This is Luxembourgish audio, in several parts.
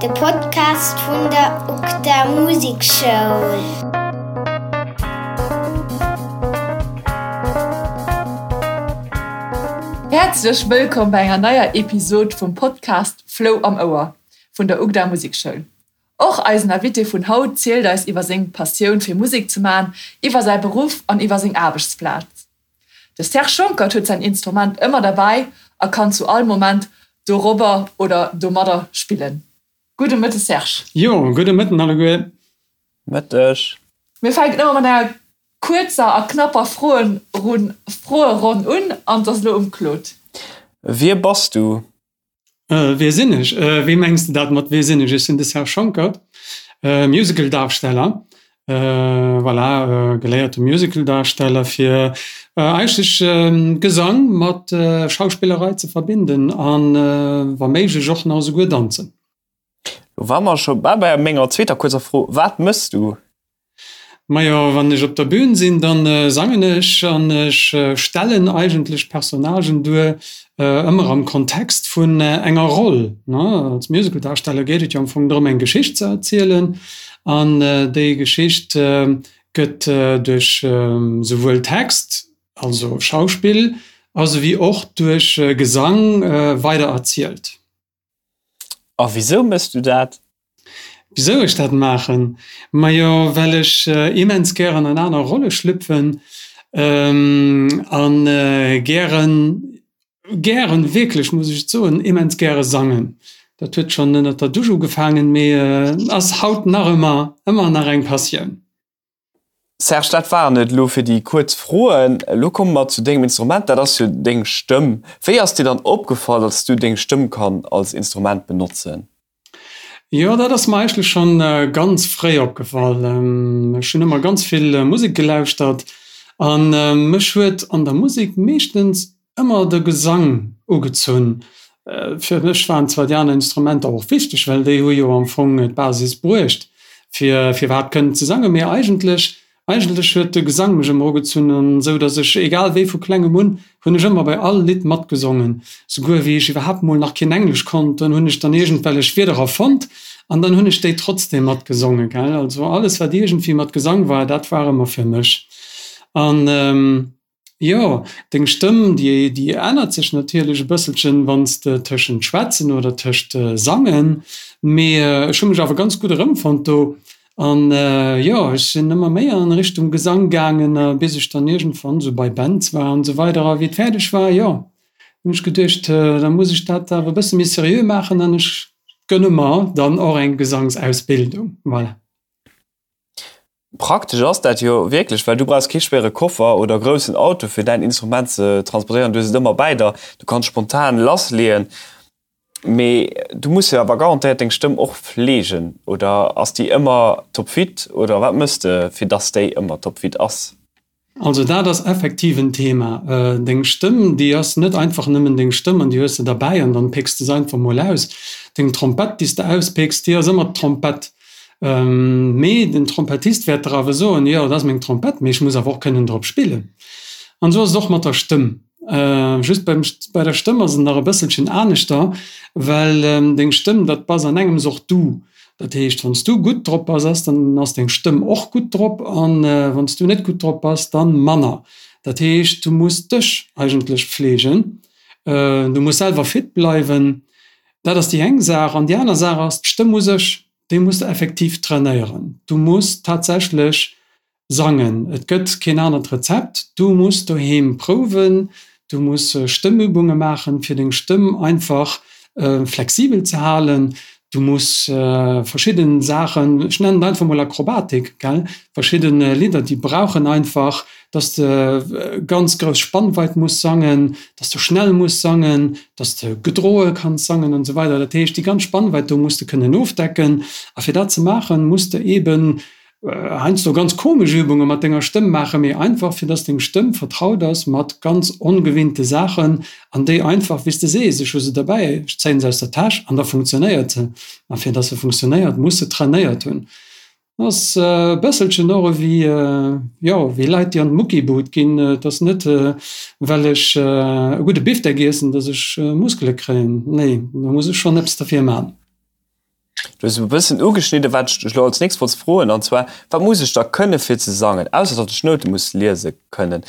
De Podcast vun der UGDA Musekschoul. Häerzlech wëllkomm bei enger neier Episod vum Podcast Flou am Ouer vun der UGDA Musekschoul. Och eisen Invité vun haut zielt eis iwwer seng Passioun fir Musek ze man, iwwer säi Beruff an iwwer seng Aarbechtsplaz. De Serge Schonckert huet säin Instrument ëmmer derbäi a kann zu all Moment dorobber oder domadder spillen. Gudde Mëtte Serge. Jo, gudde Mëtten alleguer. Mëtteg. Mir fänken ëmmer mat enger kuerzer a knapper Froeronn un an et ass elo um Claude. Wie bass du? Wie sinn ech? Wéi mengs de dat mat wie sinn ech? Ech sinn de Serge Schonckert, Musicaldarsteller, voilà, geléierte Musicaldarsteller fir eigentlech Gesang mat Schauspillerei ze verbinden an wa méiglech och nach esouguer danzen. Lo ware mer scho bal bei menger zweeter kuerzer Fro, Wat mëss du? Majo, wann ech op der Bühn sinn, dann sangen ech an ech stellen eigentlech Personnagen duer, ëmmer am Kontext vun enger Roll. Als Musicaldarsteller geet et jo am Fong drëm, eng Geschicht ze erzielen an déi Geschicht gëtt duerch souwuel Text, also Schauspill, esouwéi och duerch Gesang weider erzielt. A wisou mëss du dat? Wisou ech dat maachen? Majo well ech immens gären an aner Rolle schlüpfen an gären, gären, wierklech muss ech et soen, immens gäre sangen. Dat huet schonn ënnert der Dusch ugefaangen, mee ass haut nach ëmmer, ëmmer nach eng Passioun. Serge, dat waren et elo fir déi kuerz Froen. Elo komme mer zu dengem Instrument, dat ass jo deng Stëmm. Wéi ass dir dann opgefall, datt s du deng Stëmm kann als Instrument benotzen? Jo, dat ass mer eigentlech schonn ganz fréi opgefall. Ech hunn ëmmer ganz vill Musek gelauschtert a mech huet an der Musek meeschtens ëmmer de Gesang ugezunn. Fir mech waren zwar déi aner Instrumenter och wichteg, well déi hu jo am Fong d'Basis bruecht, fir fir iwwerhaapt kënnen ze sangen, mee eigentlech, eigentlech huet de Gesang mech ëmmer ugezunn, an esou datt ech, egal wéi, vu klengem un hunn ech ëmmer bei all Lidd matgesongen. Souguer wéi ech iwwerhaapt mol nach keen Englesch konnt, dann hunn ech dann iergendwellech Wierder erfonnt an dann hunn ech déi trotzdem matgesongen, gell. Also alles wat iergendwéi mat Gesang war, dat war ëmmer fir mech. An. Jo, deng Stëmm, déi déi ännert sech natierlech e bësselchen, wann s de tëschent schwätzen oder tëscht sangen, mee ech hu mech awer ganz gutt erëmfonnt do an jo, ech sinn ëmmer méi an Richtung Gesang gaangen, bis ech dann iergendwann esou bei Bands war an esou weider a wéi et fäerdeg war, jo, hunn ech geduecht, da muss ech dat awer e bësse méi seriö maachen an ech gënne mer dann och eng Gesangsausbildung, voilà. Praktesch ass dat jo wierklech, well du brauchs kee schwéiere Koffer oder groussen Auto fir däin Instrument ze transportéieren. Du hues et ëmmer bäi der, du kanns spontan lassleeën. Mee du muss jo awer garantéiert deng Stëmm och fleegen, oder ass déi ëmmer topfit oder wat mëss de fir dass déi ëmmer topfit ass? Also dat ass effektiv en Thema. Deng Stëmm, déi ass net einfach nëmmen deng Stëmm an déi hues de derbäi an dann pécks de se einfach mol aus. Deng Trompett, déi s de auspécks, déi ass ëmmer d'Trompett. Mee den Trompettist wäert der awer soen, jo, dat ass meng Trompett, mee ech muss awer och kënnen drop spillen. An esou ass et och mat der Stëmm. Just beim, bei der Stëmm ass et nach e bësselchen aneschter, well deng Stëmm, dat bass an engems och du. Dat heescht, wann s du gutt drop bass, ass, dann ass deng Stëmm och gutt drop an wann s du net gutt drop bass, dann manner. Dat heescht, du muss dech eigentlech pflegen, du muss selwer fit bleiwen. Dat ass déi eng Saach. An déi aner Saach ass, d'Stëmm u sech, déi muss de effektiv trainéieren. Du muss tatsächlech Sangen, et gëtt keen anert Rezept. Du muss doheem prouwen, du muss Stëmmübunge maachen, fir deng Stëmm einfach flexibel ze halen. Du muss verschidden Saachen, ech nennen et einfach mol Akrobatik, gell, verschidden Lidder, déi brauchen einfach, dass de ganz grouss Spannweit muss sangen, dass de schnell muss sangen, dass de gedroe kanns sangen an esou weider. Dat heescht, déi ganz Spannweit do muss de kënnen ofdecken. A fir dat ze maachen, muss de eeben Heiansdo ganz komesch Übunge mat denger Stëmm maachen, mee einfach fir dass deng Stëmm vertraut ass mat ganz ongewinnte Saachen an déi einfach, wéi s de sees, ech hu se derbäi, ech zéien se aus der Täsch an da funktionéiert se. A fir dass se funktionéiert, muss se trainéiert hunn. Ass e bësselchen och ewéi, jo, wéi Leit déi an d'Muckibud ginn. Et ass net well ech e gudde Bifdeck iessen, dass ech Muskele kréien. Nee, do muss ech schonn eppes derfir man. Du hues e bëssen ugeschnidden, wat ech dech elo als nächst wollt froen, an zwar, Wat muss ech da kënne fir ze sangen, ausser datt ech Noute muss liese kënnen?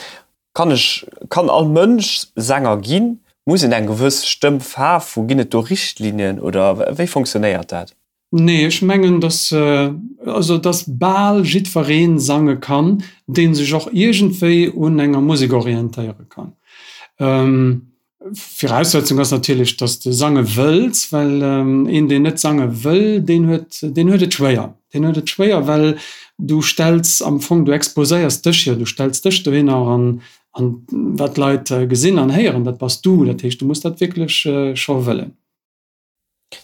Kann ech, kann all Mënsch Sänger ginn? Muss een eng gewëss Stëmmfaarf hu? Ginn et do Richtlinien oder wéi fonctionnéiert dat? Nee, ech mengen, dass, also dass bal jiddweree sange kann, dee sech och iergendwéi un enger Musek orientéiere kann. Viraussetzung ass natierlech, dass de sange wëlls, well een, deen net sange wëll, deen huet, deen huet et schwéier. Deen huet et schwéier, well du stells am Fong, du exposéiers dech jo, du stells dech dohinner an, an wat d'Leit gesinn an héieren, dat bass du. Dat heescht, du muss dat wierklech scho wëllen.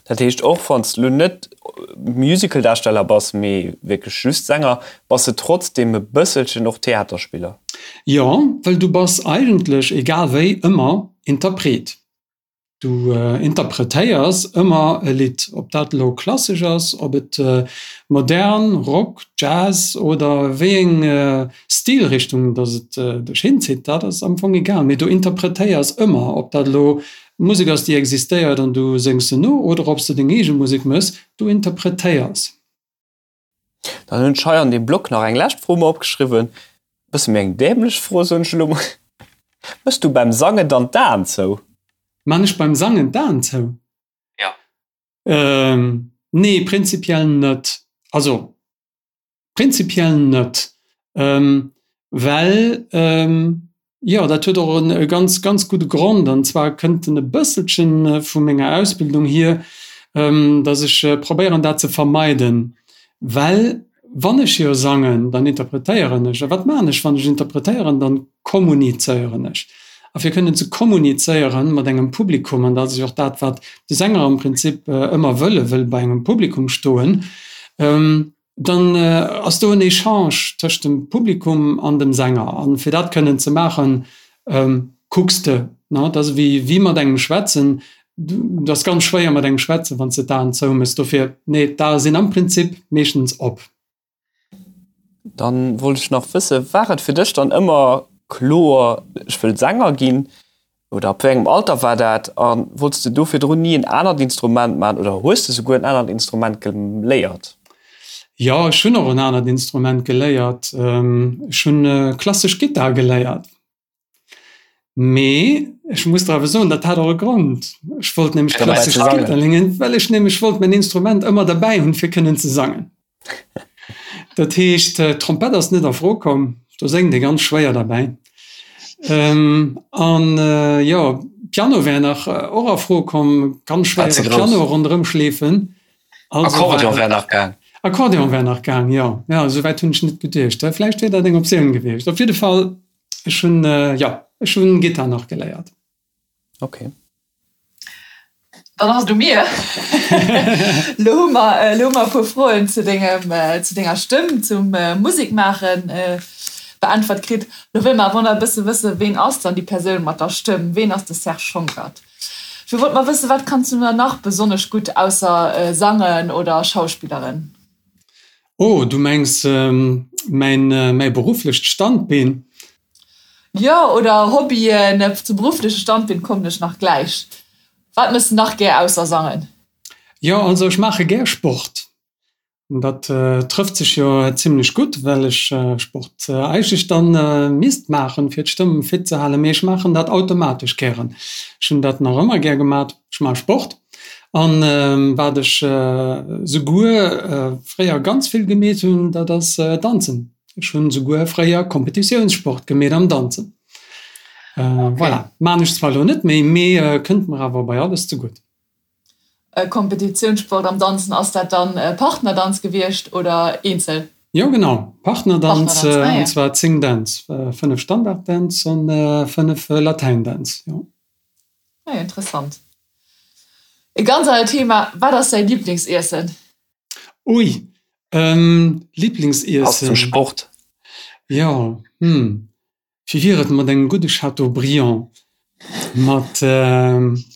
Dat heescht, och wann s de lo net Musicaldarsteller bass, mee wierklech just Sänger, bass de trotzdeem e bësselchen och Theaterspiller? Jo, well du bass eigentlech, egal wéi, ëmmer Interpret. Du interpretéiers ëmmer e Lidd, ob dat elo klassesch ass, ob et modern, Rock, Jazz oder wéi eng Stilrichtung dass et dech hinzitt, dat ass am Fong egal, mee du interpretéiers ëmmer, ob dat elo Musek ass déi existéiert an du séngs se no oder ob s de deng eege Musek mëss, du interpretéiers. Dann hunn ech hei an deem Block nach eng lescht Fro mer opgeschriwwen, e bësse méi eng dämlech Fro, soen ech elo mol, Mëss du beim Sangen dann d'Aen zou? Man ech beim Sangen d'Aen zou? Jo. Nee, prinzipiell net. Also Prinzipiell net, well, jo, dat huet och e ganz, ganz gudde Grond, an zwar kënnt en e bësselche vu menger Ausbildung hier, datt ech probéieren, dat ze vermeiden, well wann ech jo sangen, dann interpretéieren ech. A wat maachen ech, wann ech interpretéieren? Dann kommunizéieren ech. A fir kënnen ze kommunizéieren mat engem Publikum, an dat ass jo och dat, wat de Sänger am Prinzip ëmmer wëll, e wëll bei engem Publikum stoen, dann ass do en Echange tëscht dem Publikum an dem Sänger. An fir dat kënnen ze maachen, kucks de, ne? Dat ass ewéi wéi mat engem schwätzen. Et ass ganz schwéier mat engem schwätzen, wann s de d'Aen zouméchs. Dofir, nee, d'Ae sinn am Prinzip meeschtens op. Dann wollt ech nach wëssen, war et fir dech dann ëmmer kloer, ech wëll Sänger ginn? Oder ab wéi engem Alter war dat? A wollts de do virdrun ni en anert Instrument maachen oder hues de souguer en anert Instrument geléiert? Jo, ech hunn och en anert Instrument geléiert. Ech hunn klassesch Gittar geléiert. Mee ech muss der awer soen, dat hat och e Grond. Ech wollt nämlech klassesch Gittar léieren, well ech nämlech wollt mäin Instrument ëmmer derbäi hunn, fir kënnen ze sangen. Dat heescht, d'Trompett ass net a Fro komm, do séngt ee ganz schwéier derbäi. An jo, Piano wär nach och a Fro komm, ganz schwéiere Piano ronderëm schleefen. Akkordeon wär nach gaang. Akkordeon wär nach gaang, jo. Jo, esou wäit hunn ech net geduecht. Vläicht wier dat eng Optioun gewiescht. Op jidde Fall, ech hunn, jo, ech hunn Gittar nach geléiert. Okay. Dann ass et u mir. Lo hu mer, lo hu mer e puer Froen zu dengem, zu denger Stëmm, zum Musekmaachen beäntwert kritt. Lo wëlle mer awer nach e bësse wëssen, ween ass dann déi Persoun mat der Stëmm? Ween ass de Serge Schonckert? Ech wollt mar wëssen, wat kanns du dann nach besonnesch gutt ausser sangen oder schauspilleren? Oh, du mengs mäin, mäi berufflecht Standbeen? Jo, oder Hobbyen, zum beruffleche Standbeen kommen ech nach gläich. Wat mëss de nach gär ausser sangen? Jo, also ech maache gär Sport. Dat trëfft sech jo zimlech gutt, well ech Sport eigentlech dann misst maachen, fir d'Stëmm fit ze halen, mee ech maachen dat automatesch gären. Ech hunn dat nach ëmmer gär gemat, ech maache Sport. An wat ech souguer fréier ganz vill gemeet hunn, dat ass danzen. Ech hunn souguer fréier Kompetitiounssport gemeet am Danzen. Voilà, maan ech zwar elo net méi, mee kënnt mer awer bei alles zegutt. Kompetitiounssport am Danzen, ass dat dann Partnerdanz gewiescht oder eenzel? Jo genau, Partnerdanz, an zwar 10 Dänz, 5 Standarddänz an 5 Latäindänz, jo. Ah, interessant. E ganz anert Thema, Wat ass däi Liblingsiessen? Ui, Liblingsiessen. Passt zum Sport. Jo, hm, wéi wier et mat engem gudde Chateaubriand mat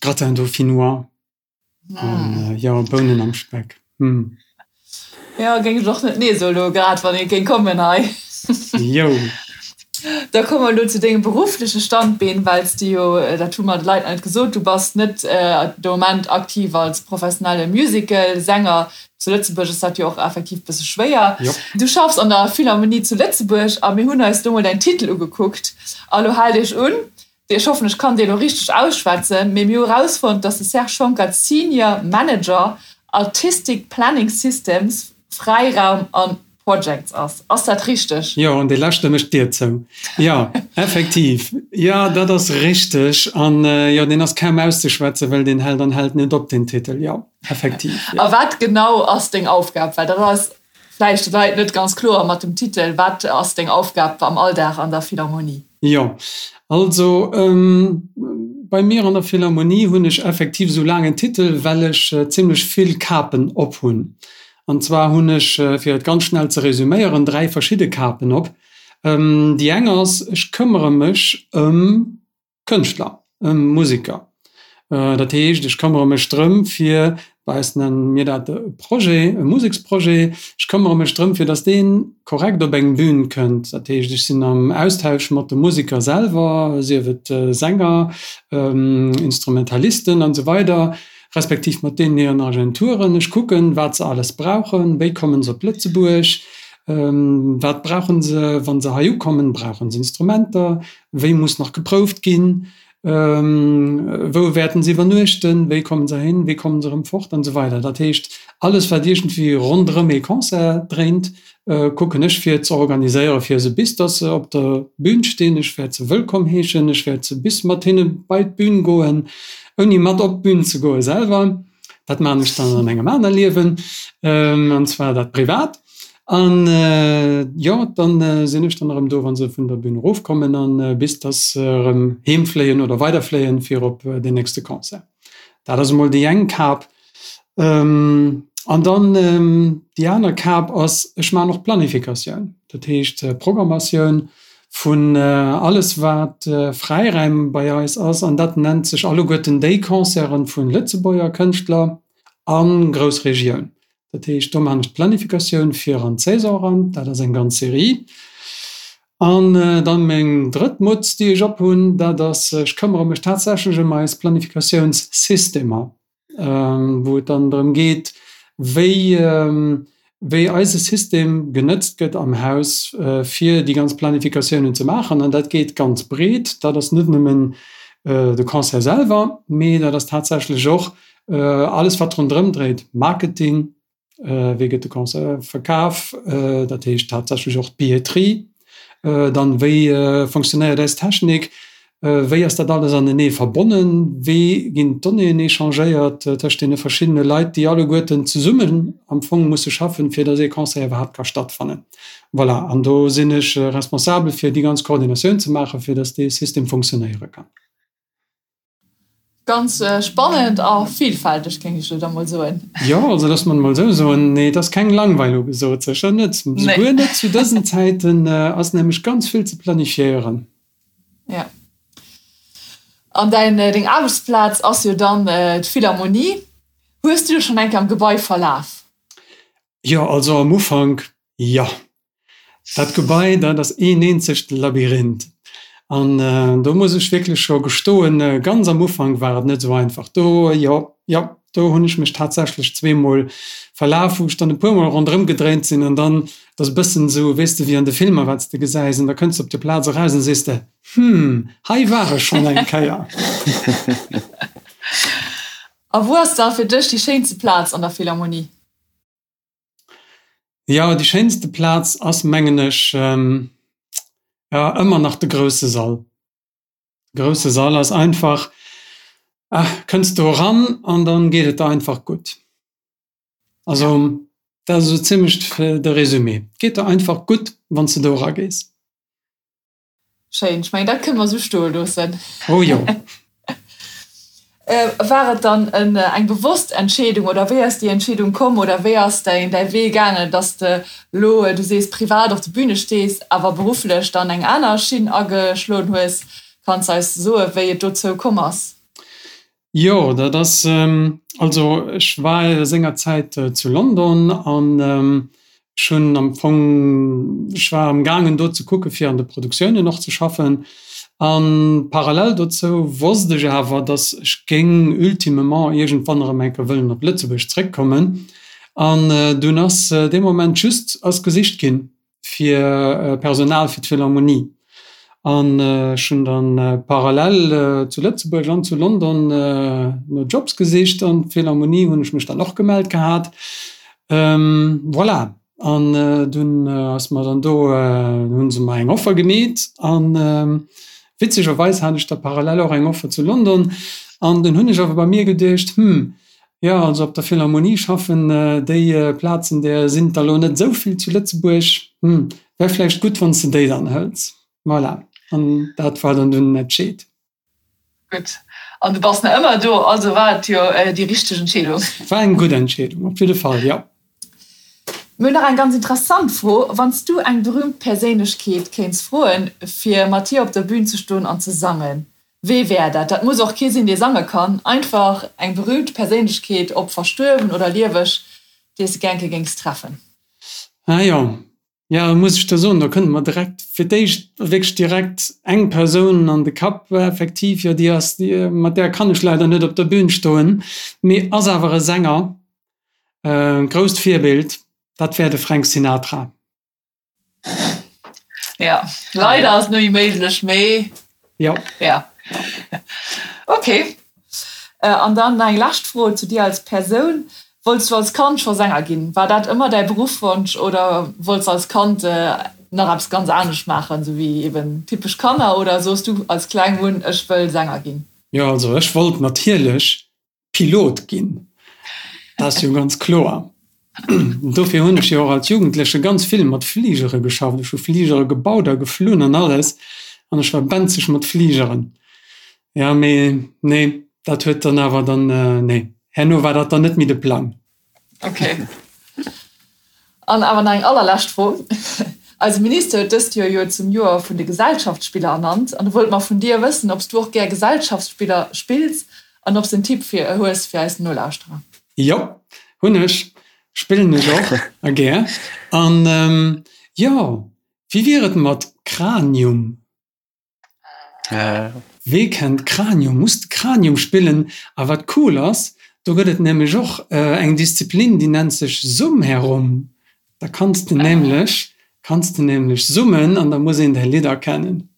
Gratin dauphinois an, jo, Bounen am Speck, hm. Jo, géing ech och net nee soen elo grad, wann ee géing kommen hei. Jo. Da komme mer elo zu dengem beruffleche Standbeen, well s de jo, dat hu mer de Leit nach net gesot, du bass net de Moment aktiv als professionelle Musical-Sänger. Zu Lëtzebuerg ass dat jo och effektiv e bësse schwéier. Du schaffs an der Philharmonie zu Lëtzebuerg a mir hunn eis do mol däin Titel ugekuckt. A lo haalt iech un, ech hoffen, ech kann dee lo richteg ausschwätzen, mee mir hu erausfonnt, dass de Serge Schonckert Senior Manager Artistic Planning Systems, Fräiraum an Projects ass. Ass dat richteg? Jo, an dee leschte mécht d'Dier zou. Jo, effektiv. Jo, dat ass richteg. An jo, deen ass kaum auszeschwätzen, well deen hält an hält net op, deen Titel. Jo, effektiv, jo. A wat genau ass deng Aufgab? Well dat ass vläicht de Leit net ganz kloer mat dem Titel. Wat ass deng Aufgab am Alldag an der Philharmonie? Jo, also bei mir an der Philharmonie hunn ech effektiv esou laangen Titel, well ech zimlech vill Kapen op hunn. An zwar hunn ech, fir et ganz schnell ze resüméieren, 3 verschidde Kapen op. Déi eng ass, ech këmmere mech ëm Kënschtler, ëm Museker. Dat heescht, ech këmmere mech drëm, fir, bei eis nenne mir dat e Projet, e Museksprojet, ech këmmere mech drëm, fir datt dee korrekt op eng Bün kënnt. Dat heescht, ech sinn am Austausch mat de Museker selwer, sief et Sänger, Instrumentalisten an esou weider, respektiv mat deenen hiren Agenturen. Ech kucken, wat se alles brauchen, wéi kommen se op Lëtzebuerg, wat brauchen se, wa se hei ukommen, brauchen se Instrumenter, wéi muss nach geprouft ginn, wou wäerten se iwwernuechten, wéi kommen se hin, wéi kommen se erëm fort an esou weider. Dat heescht, alles wat iergendwéi ronderëm ee Concert dréint, kucken ech fir ze organiséieren, fir se bis dass se op der Bühn stinn, ech wäert se wëllkomm heeschen, ech wäert se bis mat hinne bei d'Bühn goen, ouni mat op d'Bühn ze goe selwer, dat maachen ech dann an engem aner Liewen, an zwar dat privat. An jo, dann sinn ech dann erëm do, wa se vun der Bühn erofkommen an bis dass se erëm heem fléien oder weiderfléien fir op deen nächste Concert. Dat ass emol déi eng Kap. An dann déi aner Kap ass, ech maachen och Planifikatioun, dat heescht Programmatioun vun alles wat Fräiräim bei eis ass. An dat nennt sech alleguerten déi Concerten vu Lëtzebuerger Kënschtler a Groussregioun. Dat heescht, do maachen ech d'Planifikatioun fir an d'Saison eran, dat ass eng ganz Serie. An dann meng drëtt Mutz, déi ech ophunn, dat ass, ech këmmere mech tatsächlech ëm eis Planifikatiounssystemer, wou et dann drëm geet, wéi, wéi eise System genëtzt gëtt am Haus, fir déi ganz Planifikatiounen ze maachen. An dat geet ganz breet, dat ass net nëmmen de Concert selwer, mee dat ass tatsächlech och alles, wat ronderëm dréit, Marketing, Wéi gëtt de Concert verkaf, dat heescht haaptsächlech och d'Billetterie. Dann, wéi fonctionnéiert eis Technik, wéi ass dat alles anenee verbonnen, wéi ginn d'Donnéeën échangéiert tëscht deene verschiddene Leit, déi alleguerten zesummen am Fong musse schaffen, fir datt ee Concert iwwerhaapt ka stattfannen. Voilà, an do sinn ech responsabel, fir déi ganz Koordinatioun ze maachen, fir datt dee System fonctionnéiere kann. Ganz spannend a villfälteg, géing ech elo da mol soen. Jo, also loosse mer et mol esou soen, nee, et ass keng Langweil ugesot, sécher net. Souguer net zu dësen Zäiten ass nämlech ganz vill ze planifiéieren. Jo. An däin, deng Aarbechtsplaz ass jo dann d'Philharmonie. Hues du dech schonn eng Kéier am Gebai verlaf? Jo, also am Ufank, jo. Dat Gebai, dat ass een eenzegt Labyrinth. An do muss ech wierklech scho gestoen, ganz am Ufank war et net esou einfach. Do, jo, jo, do hunn ech mech tatsächlech zweemol verlaf, wou ech dann e puermol ronderëm gedréint sinn. An dann, dat ass e bëssen esou, weess de, wéi an de Filmer, wat s de gesäis. An da kënns de op déi Plaz eraus an sees de, Hm, hei war ech schonn eng Kéier. A wou ass da fir dech déi schéinste Plaz an der Philharmonie? Jo, déi schéinste Plaz ass, mengen ech, jo, ëmmer nach de grousse Sall. De grousse Sall ass einfach, ah, kënns do eran an dann geet et der einfach gutt. Also, dat ass esou zimlech de Résumé. Et geet der einfach gutt, wann s de do eragees. Schéin, ech mengen dat kënne mer esou stoe loossen. Oh jo. War et dann eng bewosst Entscheedung oder wéi ass déi Entscheedung komm oder wéi ass däin däi Wee gaangen, dass de elo, du sees privat op de Büne stees, awer berufflech dann eng aner Schinn ageschloen hues? Kanns eis soe wéi et dozou komm ass? Jo, dat ass, also ech war sengerzäit zu London an. Ech hunn am Fong, ech war am gaangen do ze kucke fir an de Produktiounen och ze schaffen. A parallel dozou wosst ech awer, datt ech géing ultimement iergendwann erëm eng Kéier wëllen op Lëtzebuerg zréckkommen. An dunn ass dee Moment just ass gesicht ginn fir Personal fir d'Philharmonie. An ech hunn dann parallel zu Lëtzebuerg an zu London no Jobs gesicht an d'Philharmonie hunn ech mech dann och gemellt gehat. Voilà, an dunn ass mer dann do, hunn se mer eng Offer gemeet an witzegerweis hat ech da parallel och eng Offer zu London an dunn hunn ech awer bei mir geduecht, hm, jo also op der Philharmonie schaffen, déi Plazen där sinn der elo net esou vill zu Lëtzebuerg, hm, wär vläicht gutt wann s de déi dann hëls. Voilà, an dat war dann dunn den Entscheed. Gutt, an du bass nach ëmmer do, also war et jo déi richteg Entscheedung. War eng gutt Entscheedung, op jidde Fall, jo. Mir hunn nach eng ganz interessant Fro, Wann s du eng berüümt Perséinlechkeet kéints froen, fir mat hir op der Bün ze stoen an ze sangen, wee wär dat? Dat muss och kee sinn, dee sange kann, einfach eng berüümt Perséinlechkeet, ob verstuerwen oder lieweg, déi s de gär eng Kéier géings treffen. Ah jo, Jo, muss ech der soen, do kënnt mer direkt fir d'éischt wierklech direkt eng Persoun an de Kapp, effektiv, jo, déi ass, mat där kann ech leider net op der Bühn stoen, mee ass awer e Sänger, e grousst Virbild, dat wär de Frank Sinatra. Jo, leider ass et net méi méiglech, mee. Jo. Ja. Ok. An dann nach eng lescht Fro zu dir als Persoun. Wollts du als Kand scho Sänger ginn? War dat ëmmer däi Beruffwonsch oder wollts als Kand nach eppes ganz anescht maachen, sou wéi eben typesch Kanner? Oder soos du als Kleng un, ech wëll Sänger ginn? Jo, also ech wollt natierlech Pilot ginn, dat ass jo ganz kloer. Dofir hunn ech jo och als Jugendleche ganz vill mat Fligere geschafft. Ech hu Fligere gebaut a geflunn an alles an ech war benzeg mat Fligeren. Jo, mee nee, dat huet dann awer dann, nee, herno war dat dann net méi de Plang. Ok. An awer nach eng allerlescht Fro, Eise Minister huet dëst Joer jo zum Joer vun de Gesellschaftsspiller ernannt. An do wollte mer vun dir wëssen, ob s du och gär Gesellschaftsspiller spills an ob s en Tipp fir hues fir eis Nolauschterer. Jo, hunn ech. Spillen ech och a gär. An jo, wéi wier et mat Cranium? Wee kennt Cranium? Muss de Cranium spillen. A wat cool ass, do gëtt et nämlech och eng Disziplin, déi nennt sech Summherum. Da kanns de nämlech kanns de nämlech summen an da muss een däi Lidd erkennen.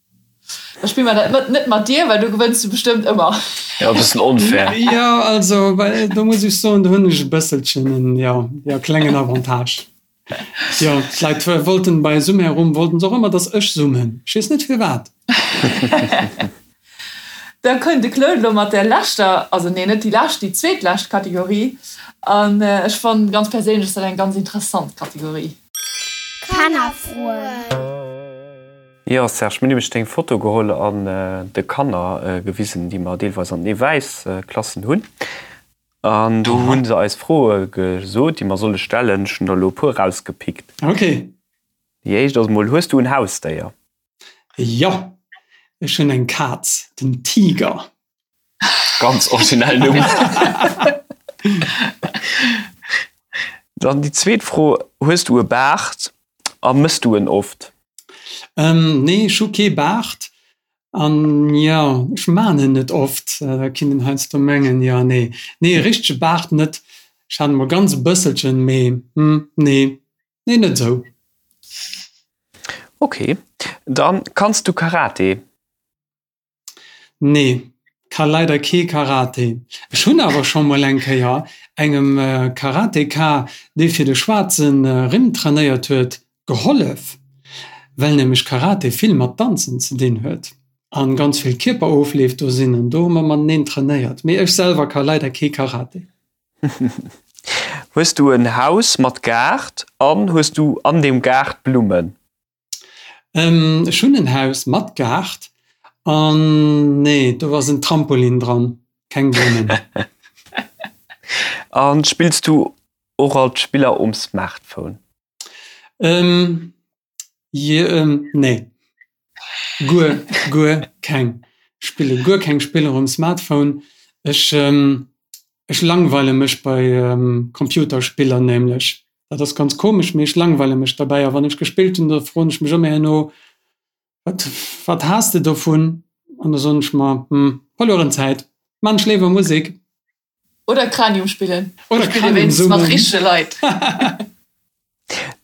Da spille mer dat net mat dir, well do gewënns du bestëmmt ëmmer. Jo, e bëssen onfair. Jo, also do muss ech soen, do hunn ech e bësselchen en, jo, jo, klengen Avantage. Jo, d'Leit wollten bei Sumherum wollten se och ëmmer, dass ech summen. Ech weess net firwat. Da kënnt de Claude elo mat der leschter, also nee, net déi lescht, déi zweetlescht Kategorie. An ech fannen ganz perséinlech ass dat eng ganz interessant Kategorie. Kannerfroen. Jo Serge, mir hunn nämlech deng Foto geholl an de Kanner gewisen, déi mer deelweis an den Ewäis-Klassen hunn. An do hu se eis Froe gesot, déi mer solle stellen. Ech hunn der elo e puer erausgepickt. Ok. Déi éischt ass emol, Hues du en Hausdéier? Jo, ech hunn eng Kaz, den Tiger. Ganz originell Numm. Dann déi zweet Fro, Hues du e Baart a mëss du en oft? Nee, ech hu kee Baart. An jo, ech maan en net oft, da kinnt een heiansdo mengen, jo, nee, nee, e richtege Baart net, ech hat emol ganz e bësselchen, mee hm, nee, nee, net esou. Ok, dann kanns du Karate? Nee, ka leider kee Karate. Ech hunn awer scho mol eng Kéier engem Karateka, dee fir de schwaarze Rimm trainéiert huet, Gehollef, well nämlech Karate vill mat Danzen ze dinn huet an ganz vill Kierperofleef do sinn an do hu mer mateneen trainéiert. Mee ech selwer ka leider kee Karate. Hues du en Haus mat Gaart an hues du an deem Gaart Blummen? Ech hunn en Haus mat Gaart an nee, do ass en Trampolin dran, keng Blummen. An spills du och alt Spiller um Smartphone? Ähm, je, ähm, nee. Guer, guer keng. Spille guer keng Spiller um Smartphone. Ech, ähm, ech langweile mech bei ähm, Computerspiller nämlech. Dat ass ganz komesch, mee ech langweile mech derbäi. A wann ech gespillt hunn, da froen ech mech ëmmer herno, Wat, wat has de dovun? An da soen ech mer, Hm, verlueren Zäit, maan ech léiwer Musek. Oder Cranium spillen. Oder Cranium summen. Mat richtege Leit.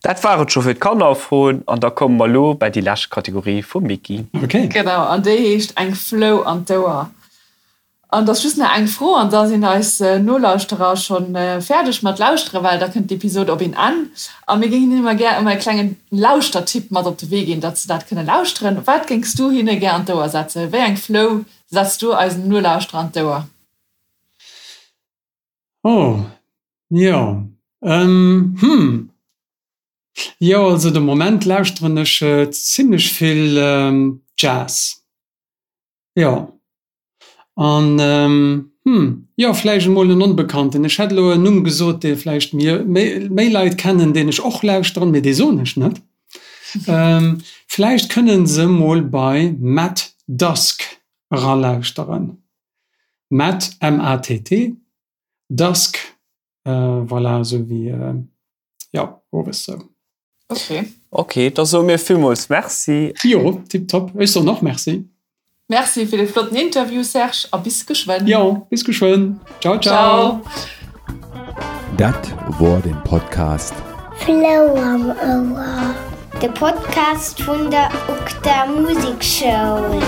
Dat war et scho fir d'Kannerfroen an da komme mer elo bei déi lescht Kategorie vum Micky. Ok. Genau, an déi heescht Eng Flou an d'Ouer. An et ass just nach eng Fro an da sinn eis Nolauschterer scho fäerdeg mat lauschteren, well da kënnt d'Episod op een Enn. A mir géingen hinnen ëmmer gär ëmmer e klengen Lauschtertipp mat op de Wee ginn, datt se dat kënne lauschteren. Wat géings du hinne gär an d'Ouer setzen? Wéi eng Flou setz du eisen Nolauschterer an d'Ouer? Oh, jo, hm, jo, also de Moment lauschteren ech zimlech vill Jazz, jo. An, hm, jo, vläicht emol en Onbekannten. Ech hätt elo en Numm gesot, dee vläicht mir méi Leit kennen, deen ech och lauschteren, mee dee soen ech net. Vläicht kënne se mol bei Matt Dusk eralauschteren. Matt, M-A-T-T, Dusk, voilà, esou wéi, jo, owes sou. Ok. Ok, da soe mir villmools Merci. Jo, tiptop. Ech soen och Merci. Merci fir de flotten Interview, Serge, a bis geschwënn. Jo, bis geschwënn. Ciao, ciao. Dat wor den Podcast. Flou am Ouer, de Podcast vun der UGDA Musekschoul.